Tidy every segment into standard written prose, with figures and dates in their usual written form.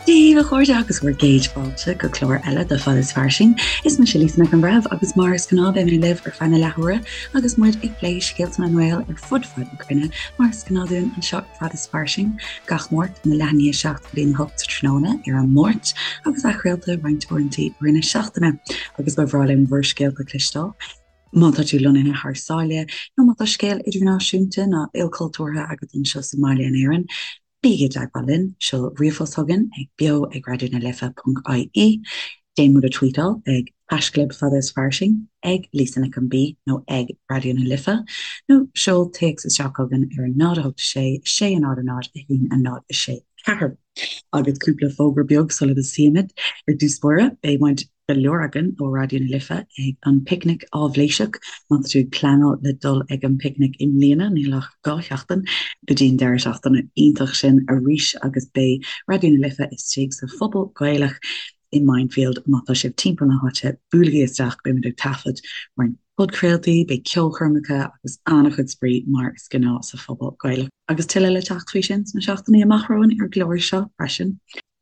Dia daoibh a chairde agus bhur gcéad fáilte go clár eile de Fad is Fairsing. Is mise Lisa Nic an Bhreithimh agus mar is gnáth beidh mé libh ar feadh na leathuaire agus muid ag plé scéalta na nGael ar fud fad na cruinne mar is gnáth dúinn anseo ar Fad is Fairsing gach Máirt óna leath i ndiaidh 7 go dtí a 8 sa tráthnóna ar an Máirt agus athchraolta roinnt uaireanta i rith na seachtaine agus ba bhreá linn bhur scéalta a chloisteáil. Má tá tú lonnaithe thar sáile nó má tá scéal idirnáisiúnta nó ilchultúrtha agat anseo sa mbaile in Éirinn, Bígí i dteagmháil linn, seol ríomhphost chugainn ag beo ag raidió na life ponc ie, déan muid a tweetáil ag haischlib fada is fairsing, ag Lisa Nic an B nó ag Raidió na Life, nó seol téacs isteach chugainn ar 0 8 6 6 0 0 1 0 6 4. Agus cúpla fógra beag sula dtosaímid. Ar dtús báire, beidh muid go leor againn ó Raidió na Life ag an bPicnic Áibhléiseach. Má tá tú ag pleanáil le dul ag an bPicnic i mbliana, níl ach 2 sheachtain go dtí an deireadh seachtaine iontach sin arís agus beidh Raidió na Life istigh sa Phuball Gaelach i Mindfield. Má tá sibh timpeall na háite, buailigí isteach, beimid ag taifead roinnt podchraoltaí, beidh ceolchoirmeacha agus an-chuid spraoi mar is gnáth sa Phuball Gaelach. Agus tuilleadh le teacht faoi sin sna seachtainí amach romhainn ar an gclár seo freisin.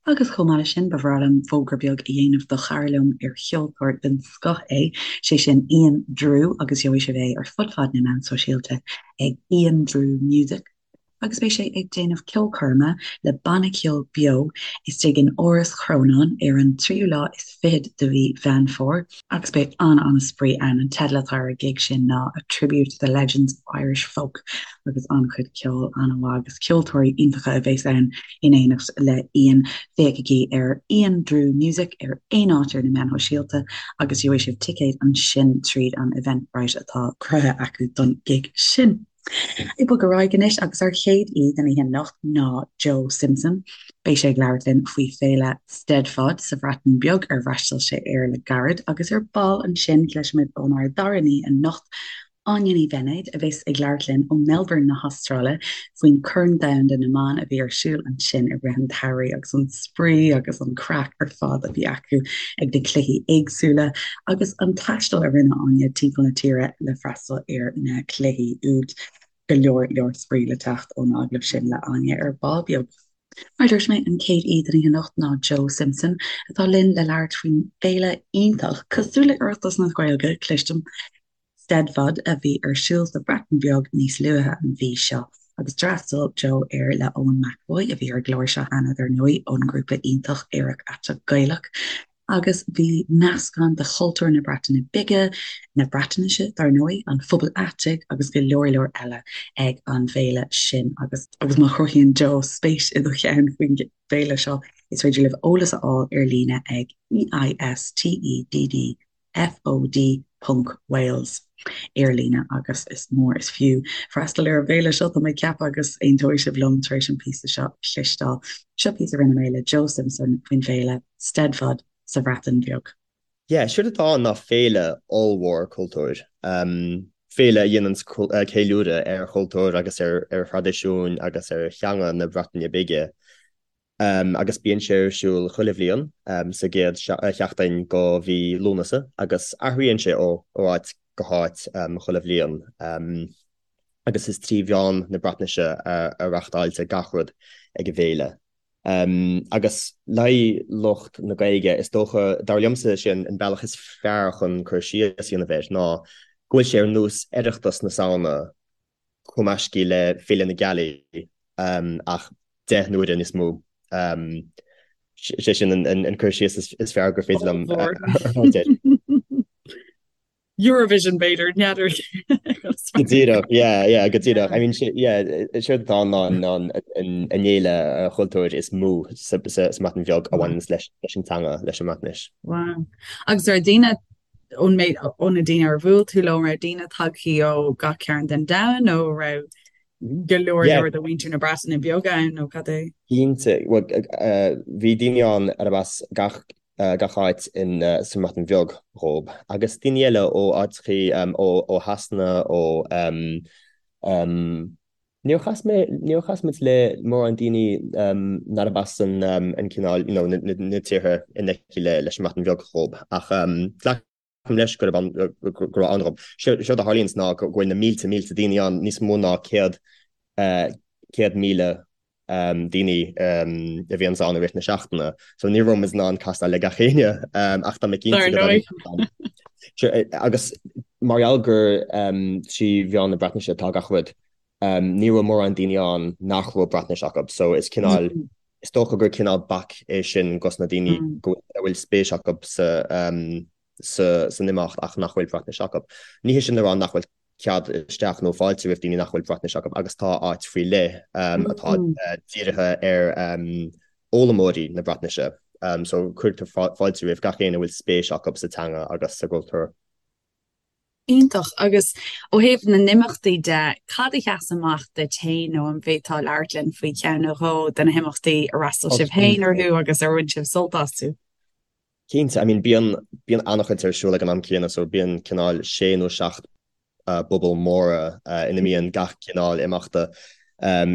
Agus chomh maith leis sin, ba bhreá liom fógra beag a dhéanamh do chara liom ar cheoltóir den scoth é, sé sin Ian Drew agus gheobhaidh sibh é ar fud fad na meán sóisialta ag Ian Drew Music agus beidh sé ag déanamh ceolchoirme le banna ceoil beo istigh in Áras Chrónáin ar an tríú lá is fichead de mhí Mheán Fómhair agus beidh an-an-spraoi ann. An teideal atá ar an gig sin ná A Tribute to the Legends of Irish Folk agus an-chuid ceoil an-mhaith agus ceoltóirí iontacha a bheas ann in éineacht le Ian. Féachaigí ar Ian Drew Music ar aon áit ar na meáin shóisialta agus gheobhaidh sibh ticéid ansin tríd an Eventbrite atá cruthaithe acu don gig sin. Ag bogadh ar aghaidh anois agus ár chéad aoi don oíche anocht ná Joe Simpson. Beidh sé ag labhairt linn faoi féile Steddfod sa Bhreatain Bheag ar fhreastail sé air le gairid agus ar ball ansin cloisfimid ónár dara haoi anocht, Áine Ní Bheinéid, a bheas ag labhairt linn ó Melbourne na hAstráile faoin Chorn Domhanda na mBan a bhí ar siúl ansin i rith an tsamhraidh agus an spraoi agus an craic ar fad a bhí acu ag na cluichí éagsúla agus an taisteal a rinne Áine timpeall na tíre le freastal ar na cluichí úd. Go leor leor spraoi le teacht ón agallamh sin le Áine ar ball beag. Mar a dúirt mé, an chéad aoi don oíche anocht ná Joe Simpson, atá linn le labhairt faoin bhféile iontach, cosúil le Oireachtas na Gaeilge, cloistim, Steddfod a bhí ar siúl sa Bhreatain Bheag níos luaithe an mhí seo agus d'fhreastail Joe air le Eoin McEvoy, a bhí ar an gclár seo cheana dar ndóigh, ón ngrúpa iontach Aerach Aiteach Gaelach. Agus bhí meascán de chultúr na Breataine Bige, na Breatnaise dar ndóigh, an phobail aitigh agus go leor leor eile ag an bhféile sin agus. Agus má chruthaíonn Joe spéis i do cheann faoin bhféile seo, is féidir libh eolas a fháil ar líne ag EISTEDD FOD ponc Wales ar líne agus is mór is fiú freastal ar an bhféile seo, tá mé ag ceapadh agus aontóidh sibh liom tar éis an píosa seo a chloisteáil. Seo píosa a rinne mé le Joe Simpson faoin bhféile Steddfod sa Bhreatain Bheag. Yeah, séard atá ann ná féile ollmhór cultúir. Féile a dhéanann ceiliúradh ar chultúr agus ar thraidisiúin agus ar theanga na Breataine Bige. agus bíonn sé ar siúl chuile bhliain sa gcéad sheachtain de mhí Lúnasa agus athraíonn sé ó áit go háit chuile bhliain agus is trí mheán na Breatnaise a reachtáiltear gach rud ag an bhféile. Agus le haghaidh lucht na Gaeilge, is dócha, dar liomsa, sé an bealach is fearr chun cur síos a dhéanamh air ná go bhfuil sé ar nós Oireachtas na Samhna cumaiscthe le Féile na Gealaí ach 10 n-uaire níos mó. Sé sin an cur síos is fearr gur féidir liom a thabhairt air. Eurovision b'fhéidir, n'fheadar. Go díreach, yeah, yeah, go díreach. I mean, yeah, séard atá ann ná an fhéile chultúir is mó sa mBreatain Bheag a bhaineanns leis an teanga, leis an mBreatnais. Wow. Agus ar daoine ón méid, ó na daoine ar bhuail tú leo, an raibh daoine tagthaí ó gach cearn den domhan nó an raibh go leor leor de mhuintir na Breataine Bige ann nó cad é? Cinnte, bhuel, bhí daoine ann arb as gach, gach áit in, sa mBreatain Bheag dhób, agus daoine eile ó áiteachaí, ó, ó Shasana, ó, Níor chas mé, níor chas muid le mórán daoine nárab as an an cineál, you know, na tíortha in aice le leis an mBreatain Bheag dhób ach glacaim leis gurb ann, go raibh ann dhób. Séard a tharlaíonns ná go bhfuil na mílte, mílte daoine ann, níos mó ná 100,000. daoine a bhíonns ann i rith na seachtaine. So ní raibh muid in ann castáil le gach éinne ach tá mé cinnte go dtáinig agus mar gheall gur trí mheán na Breatnaise atá gach rud, ní raibh mórán daoine ann nach raibh Breatnais acu. So is cineál, is dócha gur cineál bac é sin dos na daoine go a bhfuil spéis acu sa san imeacht ach nach bhfuil Breatnais acu. Ní hé sin le rá nach bhfuil cead isteach nó fáilte roimh daoine nach bhfuil Breatnais acu agus tá áit faoi leith atá dírithe ar fhoghlaimeoirí na Breatnaise. So cuirtear fáilte roimh gach éinne a bhfuil spéis acu sa teanga agus sa gcultúr. Iontach. Agus ó thaobh na n-imeachtaí de, cad a sheas amach duit féin nó an bhféadfá labhairt linn faoi cheann nó dhó de na himeachtaí ar fhreastail sibh féin orthu agus ar bhain sibh sult astu? Cinnte, I mean bíonn, bíonn an-chuid ar siúl ag an am céanna so bíonn cineál sé nó seacht bpuball móra ina mbíonn gach cineál imeachta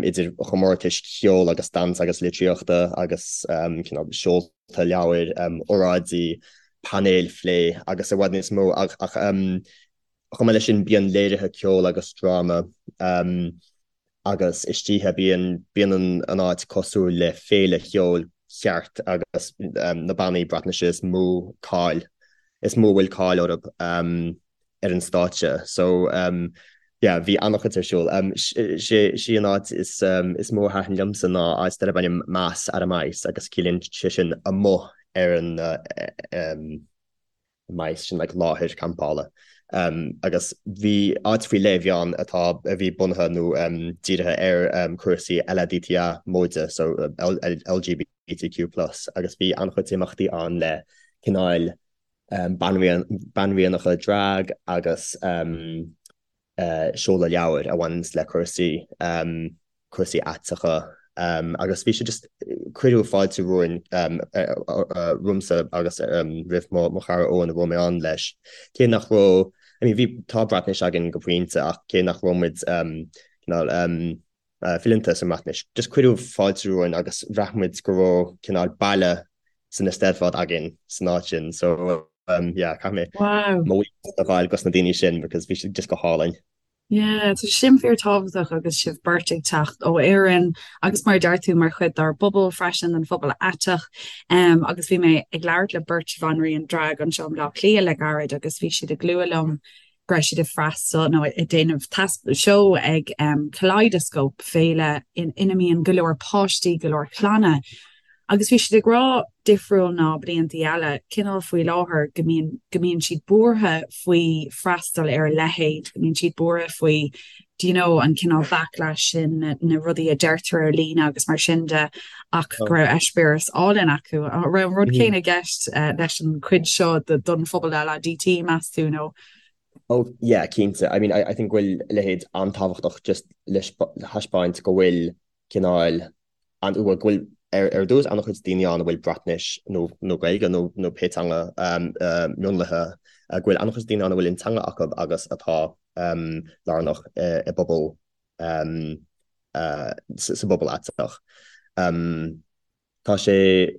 idir chomórtais cheoil agus damhsa agus litríochta agus cineál seolta leabhair, óráidí, painéil phlé agus i bhfad níos mó ach chomh maith leis sin bíonn léirithe ceoil agus dráma. Agus istoíche bíonn bíonn an áit cosúil le féile cheoil cheart agus na bannaí Breatnaise is mó cáil, is mó a bhfuil cáil orthu ar an stáitse. So yeah, bhí an-chuid ar siúl. Sé sí an áit is is mó a thaitin liomsa ná áit darb ainm Mas ar y Maes agus ciallaíonn sé sin amuigh ar an maes, sin like láthair campála. Agus bhí áit faoi leith a bhí ann atá, a bhí bunaithe nó dírithe ar cúrsaí LADTA móide, so LGBTQ plus, agus bhí an-chuid imeachtaí ann le cineáil banríonacha drag agus seoladh leabhair a bhaineanns le cúrsaí, cúrsaí aiteacha agus bhí sé just, cuireadh fáilte romhainn, romhamsa agus roimh mo chara Eoin a raibh mé ann leis. Cé nach raibh, I mean bhí, tá Breatnais againn go pointe ach cé nach raibh muid cineál fileanta sa mBreatnais, just cuireadh fáilte romhainn agus bhraith muid go raibh cineál baile san Eisteddfod againn san áit sin so yeah caithfidh mé mo bhuíochas a ghabháil dos na daoine sin because bhí siad just go hálainn. Yeah, tá sin fíor tábhachtach agus sibh beirt ag teacht ó Éirinn agus mar a deir tú mar chuid dár bpobal freisin, den phobal aiteach. Um, agus bhí mé ag labhairt le beirt bhanríon drag anseo i mBleá Cliath le gairid agus bhí siad ag lua liom go raibh siad ag freastal nó ag déanamh seó ag um, Kaleidoscope, féile in, ina mbíonn go leor páistí, go leor clanna. Agus bhí siad ag rá, difriúil ná bliantaí eile, cineál faoi láthair go mbíonn, go mbíonn siad buartha faoi freastal ar a leithéid, go mbíonn siad buartha faoi, do you know, an cineál backlash sin, na, na rudaí a deirtear ar líne agus mar sin de, ach go raibh eispéireas álainn acu. An raibh an rud céanna i gceist leis an chuid seo don phobal LADT, meas tú, nó? Oh yeah, cinnte. I mean, I, I think go bhfuil a leithéid an-tábhachtach just le thaispeáint go bhfuil cineál an bhfuil go bhfuil ar ar dtús an-chuid daoine ann a bhfuil Breatnais nó nó Gaeilge nó nó pé teanga mionlaithe go bhfuil an-chuid daoine ann a bhfuil an teanga acu agus atá lárnach i bpobal sa bpobal aiteach. Tá sé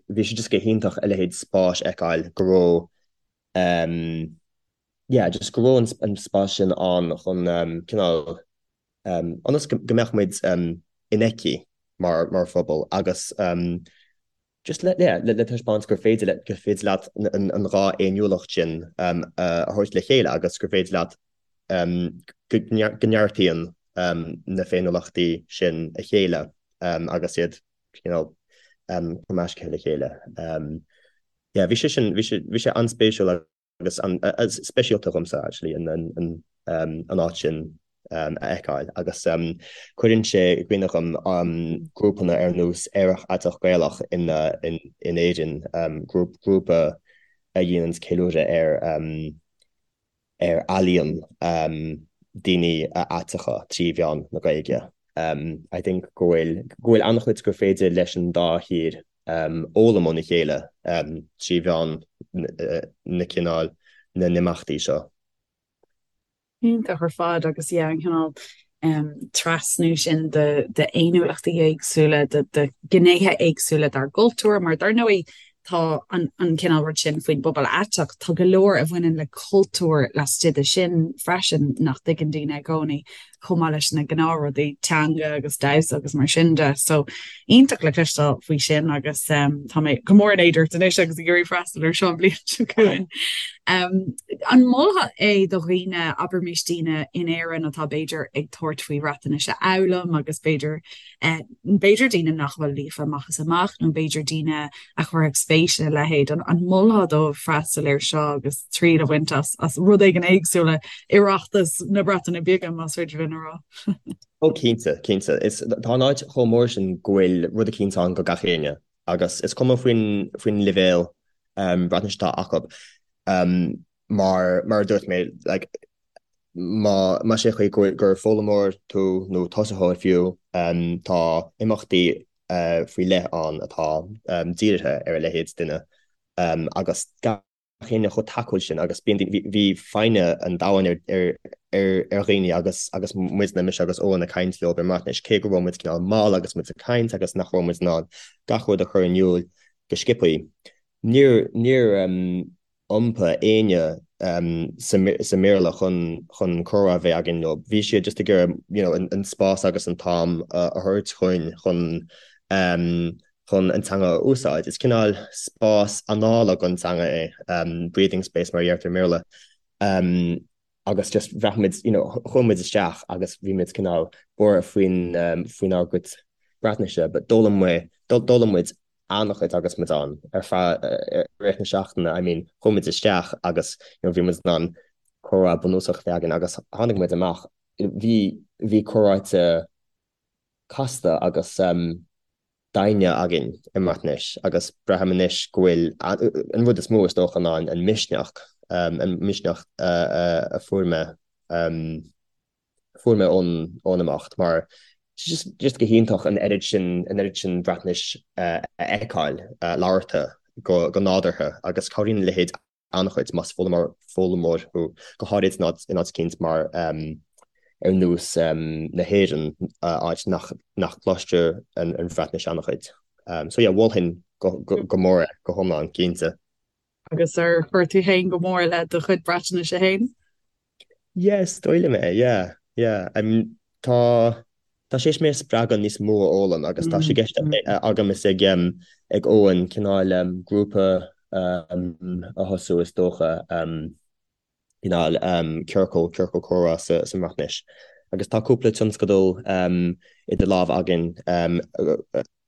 bhí sé just go hiontach a leithéid spáis a fheiceáil go raibh yeah just go raibh an spás sin ann chun cineál ionas go mbeadh muid infheicthe mar phobal agus just le yeah le taispeáint gur féidir le gur féidir leat an dhá fhéiniúlacht sin a thabhairt le chéile agus gur féidir leat go neartaíonn na féiniúlachtaí sin a chéile agus iad you know cumaiscthe le chéile. Yeah bhí sé sin bhí sé bhí sé an-spéisiúil agus an-speisialta dhomsa actually an áit sin a fheiceáil agus cuireann sé i gcuimhne dhom grúpanna ar nós Aerach Aiteach Gaelach in Éirinn, grúpa a dhéananns ceiliúradh ar ar ealaíon daoine aiteacha trí mheán na Gaeilge. I think go bhfuil go bhfuil an-chuid gur féidir leis an dá thír fhoghlaim óna chéile trí mheán na cineál na n-imeachtaí seo. Iontach ar fad agus yeah an cineál trasnú sin de d'fhéiniúlachtaí éagsúla, de de ghnéithe éagsúla dár gcultúr mar dar ndóigh tá an an cineál rud sin faoin bpobal aiteach, tá go leor a bhaineann le cultúr laistigh de sin freisin nach dtuigeann daoine i gcónaí. chomh maith leis na gnáthrudaí teanga agus damhsa agus mar sin de. So iontach le cloisteáil faoi sin agus tá mé go mór in éad ort anois agus ag iarraidh freastal ar seo an bhliain seo chugainn. An molfá é do dhaoine, abraimis daoine in Éirinn atá b'fhéidir ag tabhairt faoi Bhreatnais a fhoghlaim agus b'fhéidir b'fhéidir daoine nach bhfuil líofa amach is amach nó b'fhéidir daoine a chuirfeadh spéis ina leithéid, an molfá dóibh freastal air seo agus triail a bhaint as as rud éigin éagsúil le Oireachtas na Breataine Bige, más féidir linn a rá? Ó cinnte, cinnte. Is tá an áit chomh mór sin go bhfuil rud eicínt ann go gach éinne agus is cuma faoin faoin leibhéal Breatnaise atá acu. Mar mar a dúirt mé, like, má más é chaoi gur foghlaimeoir tú nó tosaitheoir fiú, tá imeachtaí faoi leith ann atá dírithe ar a leithéid duine agus gach éinne chomh tacúil sin agus bíonn bhí foighne an domhain ar ar dhaoine agus agus muidne, mise agus Eoin ag caint leo i mBreatnais, cé go raibh muid cineál mall agus muid ag caint agus nach raibh muid in ann gach rud a chur in iúl go sciobthaí. Níor níor iompaigh éinne sa mBéarla chun chun comhrá a bheith againn leo. Bhí siad just ag iarraidh you know an spás agus an t-am a thabhairt chugainn chun chun an teanga a úsáid. Is cineál spás anála don teanga é, breathing space mar a deirtear i mBéarla. Agus just bhraith muid you know chuaigh muid isteach agus bhí muid cineál buartha faoin faoinár gcuid Breatnaise but d'fhoghlaim muid d'fhoghlaim muid an-chuid agus muid ann ar feadh i rith na seachtaine, I mean chuaigh muid isteach agus you know bhí muid in ann comhrá bunúsach a bheith againn agus tháinig muid amach, bhí bhí comhráite casta agus doimhne againn i mBreatnais agus braithim anois go bhfuil an rud is mó is dócha ná an misneach, an misneach a fuair mé. fuair mé ón ón imeacht mar just just go hiontach an oiread sin an oiread sin Breatnais a fheiceáil labhartha go go nádúrtha agus cabhraíonn a leithéid an-chuid más foghlaimeoir foghlaimeoir thú go háirid in áit in áit eicínt mar ar nós na hÉireann áit nach nach gcloistear an an Bhreatnais an-chuid. So yeah mholfainn go go go mór é go hiomlán cinnte. Agus ar chuir tú féin go mór le do chuid Breatnaise féin? Yeah, is dóigh liom é, yeah, yeah. I mean, tá, tá sé théis mé a spreagadh níos mó a fhoghlaim agus tá sé i gceist agam is ag, ag Eoin cineál grúpa a thosú is dócha, cineál ciorcal, ciorcal comhrá sa, sa mBreatnais. Agus tá cúpla tionscadal idir lámha againn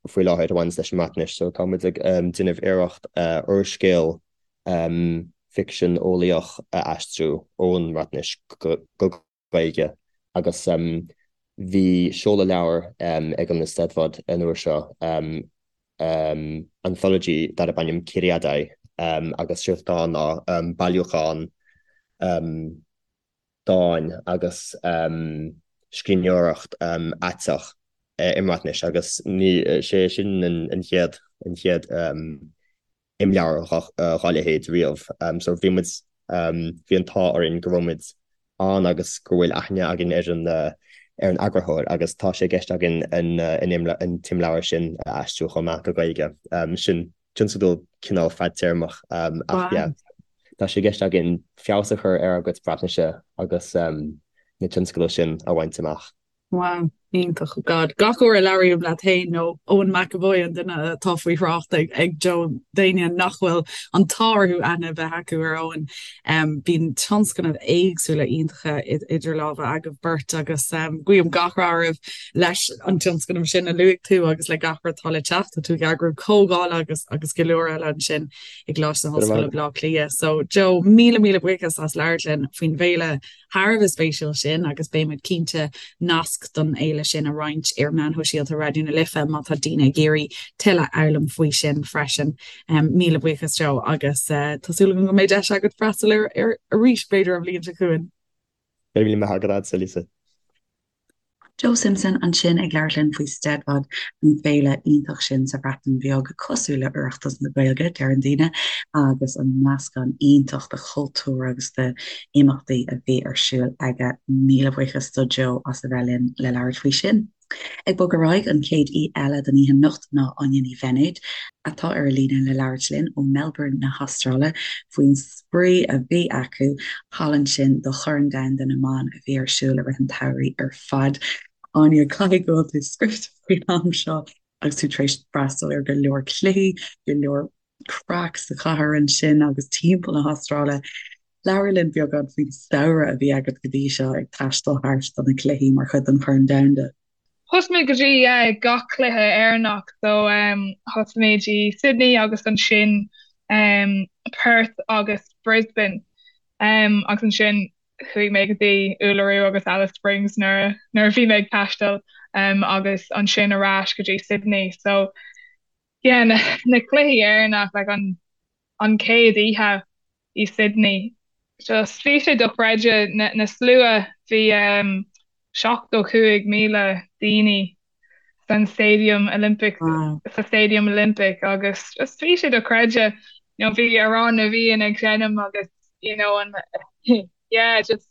faoi láthair a bhaineanns leis an mBreatnais, so tá muid ag déanamh iarracht úrscéal ficsean eolaíoch a aistriú ón mBreatnais go Gaeilge agus bhí seoladh leabhair ag an Eisteddfod an uair seo, anthology darb ainm Curiadau agus séard atá ann ná bailiúchán dáin agus scríbhneoireacht aiteach i mBreatnais agus ní sé sin an chéad an chéad imleabhar dá leithéid riamh. So bhí muid bhí an t-ádh orainn go raibh muid ann agus go bhfuil aithne againn ar an ar an eagarthóir agus tá sé i gceist againn an an t-imleabhar sin a aistriú chomh maith go Gaeilge. Sin tionscadal cineál fadtéarmach ach yeah tá sé i gceist againn feabhas a chur ar ár gcuid Breatnaise agus na tionscadail sin a bhaint amach. Wow, iontach. God, gach uair a labhraím leat féin nó Eoin McEvoy, an duine atá faoi thrácht ag ag Joe, d'éinne nach bhfuil an t-ádh orthu aithne a bheith acu ar Eoin, bíonn tionscnaimh éagsúla iontacha idir lámha agaibh beirt agus guím gach rath oraibh leis an tionscnamh sin a luaigh tú agus le gach rud atá le teacht. Tá tú ag eagrú comhdhála agus agus go leor eile ansin i gColáiste na hOllscoile Baile Átha Cliath. So Joe, míle míle buíochas as labhairt linn faoin bhféile thar a bheith spéisiúil sin agus beidh muid cinnte nasc don fhéile sin a roinnt ar mheáin shóisialta Raidió na Life má tá daoine ag iarraidh tuilleadh a fhoghlaim faoi sin freisin. Míle buíochas Joe agus tá súil agam go mbeidh deis agat freastal air arís b'fhéidir an bhliain seo chugainn. Go raibh míle maith agat, Lisa. Joe Simpson ansin ag labhairt linn faoi Steddfod, an féile iontach sin sa Bhreatain Bheag, cosúil le Oireachtas na Gaeilge, deireann daoine, agus an meascán iontach de chultúr agus de imeachtaí a bhí ar siúl aige. Míle buíochas do Joe as a bheith linn le labhairt faoi sin. Ag bogadh ar aghaidh, an chéad aoi eile don oíche anocht ná Áine Ní Bheinéid, atá ar an líne le labhairt linn ó Melbourne na hAstráile faoin spraoi a bhí acu thall ansin do Chorn Domhanda na mBan a bhí ar siúl i rith an tsamhraidh ar fad. Áine, caithfidh go bhfuil tú scriosta faoin am seo agus tú tar éis freastal ar go leor cluichí, go leor craic sa chathair ansin agus timpeall na hAstráile. Labhair linn beagán faoin samhradh a bhí agat go dtí seo ag taisteal thart do na cluichí mar chuid den Chorn Domhanda. Thosaigh mé go dtí gach cluiche Éireannach so thosaigh mé i Sydney agus ansin Perth agus Brisbane agus ansin chuaigh mé go dtí Uluru agus Alice Springs nuair a bhí mé ag taisteal agus ansin ar ais go dtí Sydney so Yeah, na cluichí Éireannach, like an an chéad oíche i Sydney, just bhí sé dochreidte, na na slua, bhí um 75,000 daoine san Stadium Olympic, Wow. sa Stadium Olympic agus just bhí sé dochreidte, you know, bhí Amhrán na bhFiann ag seinm agus you know an yeah, just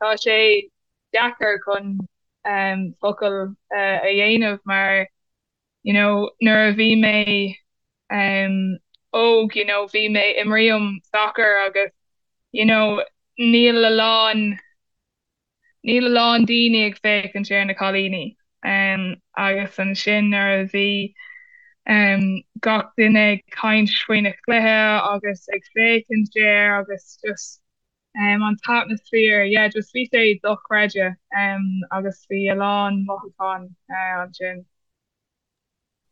tá sé deacair chun um focal uh, a dhéanamh mar you know nuair a bhí mé um óg you know bhí mé imrím soccer agus you know níl a lán níl a lán daoine ag féachaint ar na cailíní um agus ansin nuair a bhí um gach duine ag caint faoi na cluiche agus ag féachaint air agus just um an t-atmaisféar yeah just bhí sé dochreidte um agus bhí a lán mothúchán uh, ansin.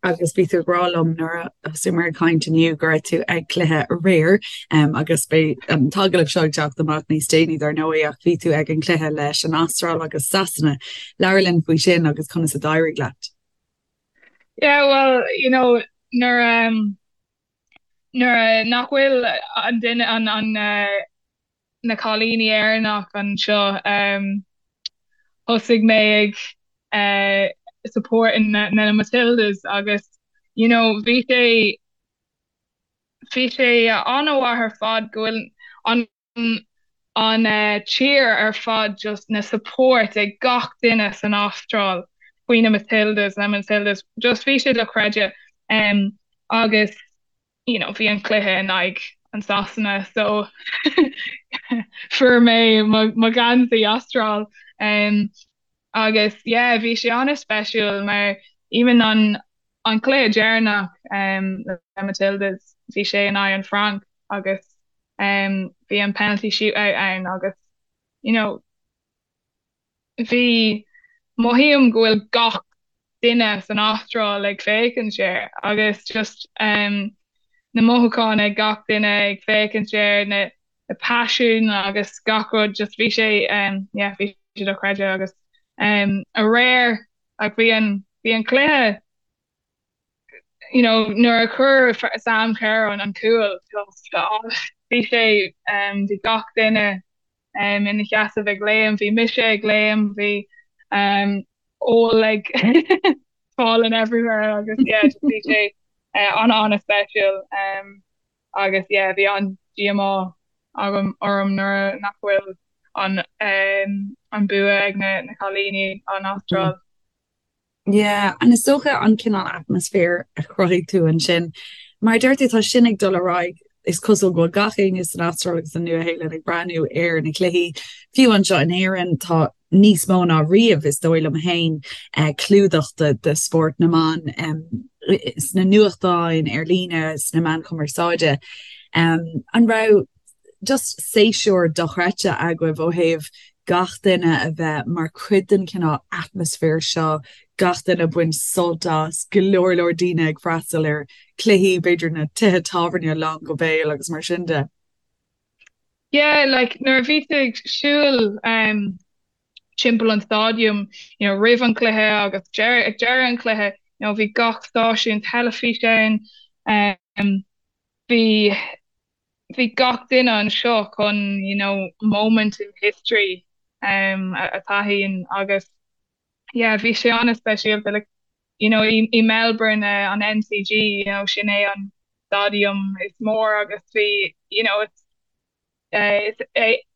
Agus bhí tú ag rá liom nuair a thosaíomar ag caint inniu go raibh tú ag cluiche aréir um, agus beidh an t-agallamh seo ag teacht amach níos déanaí dar ndóigh ach bhí tú ag an cluiche leis an Astráil agus Sasana. Labhair linn faoi sin agus conas a d'éirigh leat. Yeah, well, you know, nuair um, nuair nach bhfuil an duine an an na cailíní Éireannach anseo thosaigh mé ag supporting na na Matildas agus you know bhí sé bhí sé an-mhaith ar fad go bhfuil an an tír ar fad just na support ag gach duine san Astráil faoi na Matildas na Matildas just bhí sé dochreidte um, agus you know bhí an cluiche in aghaidh an Sasana so fuair mé mo gheansaí Astráil um, agus yeah bhí sé an-speisiúil mar even an an cluiche deireanach um, le Matildas bhí sé in aghaidh an Frainc agus um, bhí an penalty shootout ann agus you know bhí mothaím go bhfuil gach duine san Astráil ag féachaint air agus just um, na mothúcháin ag gach duine ag féachaint air na na paisean agus gach rud just bhí sé um, yeah, bhí sé dochreidte agus um, aréir ach bhí an bhí an cluiche you know nuair a chuir Sam Kerr an an cúl just bhí sé um, bhí gach duine um, ina sheasamh ag léim, bhí mise ag léim, bhí um, ól ag falling everywhere agus yeah, just bhí sé uh, an an-speisiúil um, agus yeah, bhí an díomá agam orm nuair nach bhfuil an um, an bua ag na, na cailíní an Astráil. Yeah, and is dócha an cineál atmaisféar a chruthaigh tú ansin. Mar a deir tú, tá sin ag dul ar aghaidh, is cosúil go bhfuil gach éinne san Astráil agus san Nua-Shéalainn ag breathnú ar na cluichí. Fiú anseo in Éirinn, tá níos mó ná riamh, is dóigh liom féin, clúdach de spórt na mban sna nuachtáin, ar líne, sna meáin chumarsáide. An raibh just séasúr dochreidte agaibh ó thaobh gach duine a bheith mar chuid den chineál atmaisféar seo, gach duine ag baint sult as, go leor leor daoine ag freastal ar chluichí, b'fhéidir na tithe tábhairne lán go béal agus mar sin de. Yeah, like nuair a bhí tú ag siúl um, timpeall an stadium, you know, roimh an cluiche agus ag deireadh an chluiche, you know, bhí gach stáisiún teilifíse ann, um, bhí bhí gach duine anseo chun you know moment in history um, a taithí agus yeah bhí sé an-speisialta like you know i, i Melbourne uh, an MCG you know sin é an stadium is mór agus bhí you know it's uh, is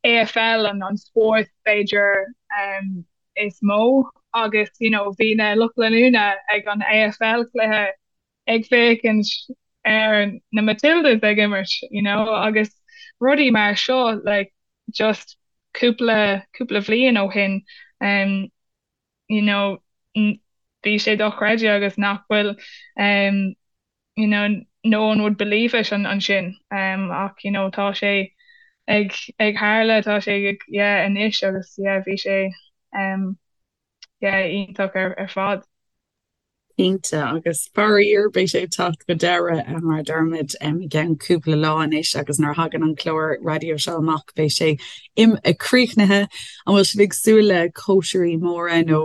AFL an an spórt b'fhéidir um, is mó. agus you know bhí na lucht leanúna ag an AFL cluiche ag féachaint ar na Matildas ag imirt you know agus rudaí mar seo like just cúpla cúpla bhliain ó shin um you know bhí sé dochreidte agus nach bhfuil um you know no one would believe it ansin um ach you know tá sé ag ag tharla tá sé ag yeah anois agus yeah bhí sé um yeah iontach ar ar fad. Cinnte, agus faraor beidh sé ag teacht go deireadh mar a deirimid i gceann cúpla lá anois agus nuair a thagann an clár raidió seo amach beidh sé críochnaithe. An bhfuil sibh ag súil le cóisirí móra nó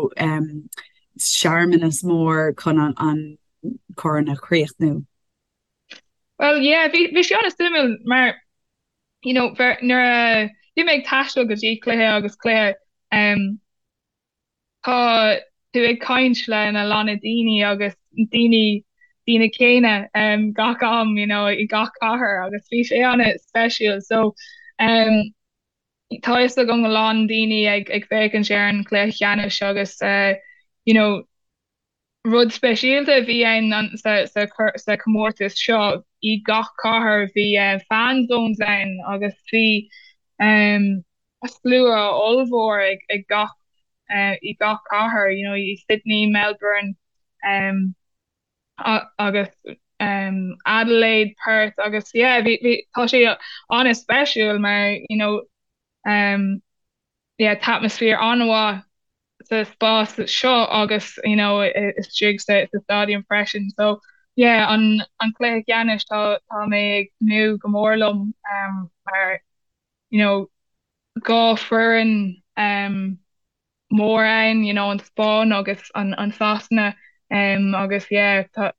searmanas mór chun an corn a chríochnú? Well yeah, bhí bhí sé an-suimiúil mar you know nuair a bhí mé ag taisteal go dtí cluiche agus cluiche um, tá tú ag caint le na lán daoine agus daoine daoine céanna um, gach am you know, i gach cathair agus bhí sé an-speisialta so um, tá fhios agam a lán daoine ag ag féachaint ar an chluiche ceannais agus uh, you know, Rud speisialta a bhí ann sa chomórtas seo, i gach cathair bhí fan zones ann agus bhí slua ollmhór ag gach i gach cathair, you know, i Sydney, Melbourne agus Adelaide, Perth agus yeah bhí bhí tá sé an-speisiúil mar you know yeah tá atmaisféar an-mhaith sa spás seo agus you know istigh sa sa stadium freisin so yeah an an cluiche ceannais tá tá mé ag tnúth go mór liom um mar you know 2 foireann um mór ann you know an Spáinn agus an an Sasana um agus yeah tá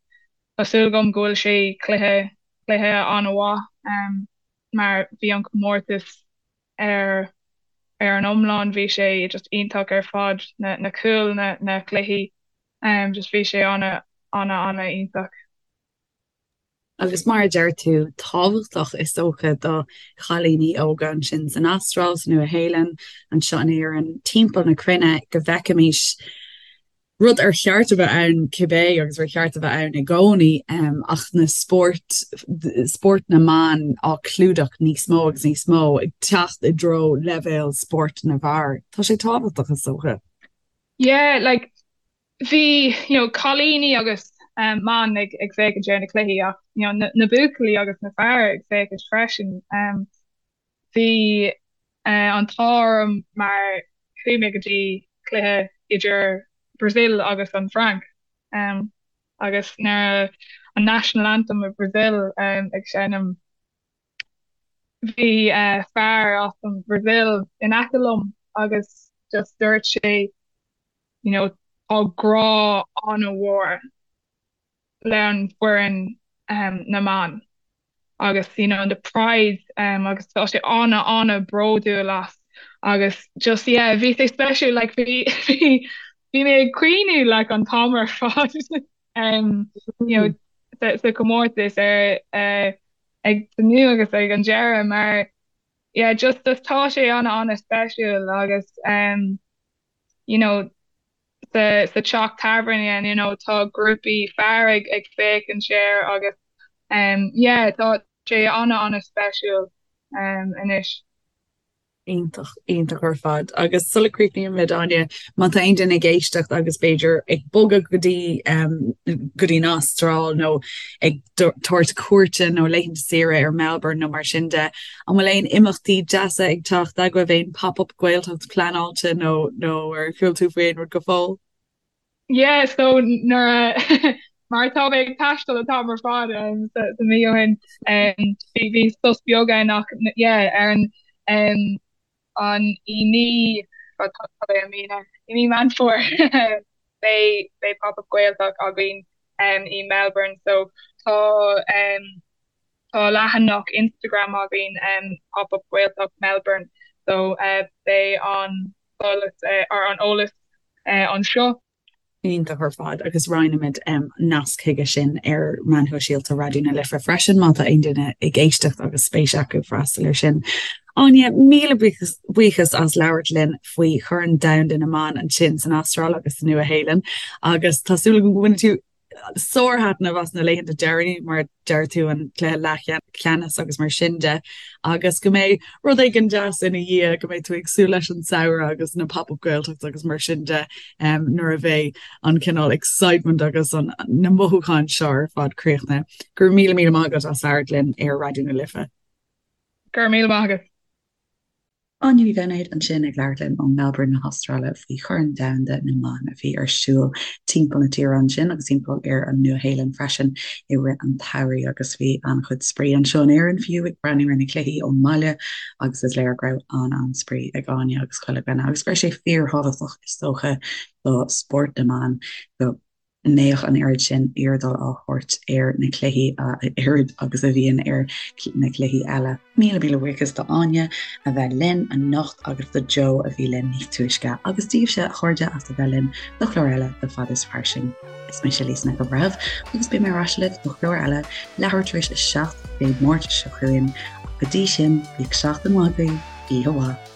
tá súil agam go bhfuil sé cluiche cluiche an-mhaith um mar bhí an comórtas ar ar an iomlán bhí sé just iontach ar fad na na cúil na na cluichí um just bhí sé ana ana ana iontach. Agus mar a deir tú, tábhachtach is dócha do chailíní óga ansin san Astráil, sa Nua-Shéalainn, anseo in Éirinn, timpeall na cruinne go bhfeicfimis rud ar cheart a bheith ann cibé agus ar cheart a bheith ann i gcónaí ach na spóirt, spórt na mban á clúdach níos mó agus níos mó, ag teacht i dtreo leibhéal spórt na bhfear. Tá sé tábhachtach is dócha. Yeah, like bhí, you know, cailíní agus mban ag ag féachaint ar na cluichí ach, you know, na, na buachaillí agus na fear ag féachaint freisin. Um, Bhí an t-ádh orm mar chuaigh mé go dtí cluiche idir Brazil agus an Fhrainc agus nuair an National Anthem of Brazil ag seinm bhí fear as an Brazil in aice liom agus just dúirt sé you know tá grá an-mhór le an foireann na mban agus you know the pride um, agus tá sé ana ana bródúil as agus just yeah bhí sé speisialta like bhí bhí bhí mé ag caoineadh like an t-am ar fad um, you know sa, sa comórtas ar uh, ag tnúth agus ag an deireadh mar yeah just just tá sé ana ana speisialta agus um, you know sa sa teach tábhairne you know tá grúpaí fear ag ag féachaint air agus um yeah tá sé ana ana speisialta um anois. Iontach, iontach ar fad. Agus sula críochnaímid, Áine, má tá aon duine ag éisteacht agus b'fhéidir ag bogadh go dtí um, go dtí an Astráil nó ag tabhairt cuairte nó laethanta saoire ar Melbourne nó mar sin de, an bhfuil aon imeachtaí deasa ag teacht agaibh, aon pop-up Gaeltacht pleanáilte nó nó ar chuala tú faoi aon rud go fóill? Yeah, so nuair a mar tá mé ag taisteal an t-am ar fad um, sa, sa mí ó shin um, bhí bhí sos beag ann ach yeah, ar an um, an i mí tá tá i mí na i mí Meán Fómhair beidh beidh pop-up Gaeltacht againn um, i Melbourne so tá um, tá leathanach Instagram againn um, pop-up Gaeltacht Melbourne so uh, beidh an eolas uh, ar an eolas uh, anseo. Iontach ar fad agus roinnfimid nasc chuige sin ar meáin shóisialta Raidió na Life freisin má tá aon duine ag éisteacht agus spéis acu freastal air sin. Áine, míle buíochas as labhairt linn faoi Chorn Domhanda na mBan ansin san Astráil agus sa Nua-Shéalainn agus tá súil agam go mbainfidh tú sárthaitneamh as na laethanta deireanaí, mar a deir tú, an cluiche leathcheannais agus mar sin de, agus go mbeidh rud éigin deas ina dhiaidh, go mbeidh tú ag súil leis an samhradh agus na Pop Up Gaeltacht agus mar sin de nuair a bheidh an cineál excitement agus an na mothúcháin seo ar fad críochnaithe. Go raibh míle míle maith agat as labhairt linn ar Raidió na Life. Go raibh míle maith agat. Áine Ní Bheinéid ansin ag labhairt linn ó Melbourne na hAstráile faoi Chorn Domhanda na mBan a bhí ar siúl timpeall na tíre ansin agus timpeall ar an Nua-Shéalainn freisin i rith an tsamhraidh agus bhí an-chuid spraoi anseo in Éirinn fiú ag breathnú ar na cluichí ón mbaile agus is léir go raibh an-an-spraoi ag Áine agus chuile dhuine agus go raibh sé fíorthábhachtach is dócha do spórt na mban go mbeadh an oiread sin airdeáil á thabhairt ar na cluichí a oiread agus a bhíonn ar na cluichí eile. Míle míle buíochas do Áine a bheith linn anocht agus do Joe a bhí linn níos túisce agus daoibhse a chairde as a bheith linn do chlár eile de Fad is Fairsing. Is mise Lisa Nic an Bhreithimh agus beidh mé ar ais libh do chlár eile leathuair tar éis a 7 Dé Máirt seo chugainn. Go dtí sin, bíodh seachtain mhaith agaibh, oíche mhaith.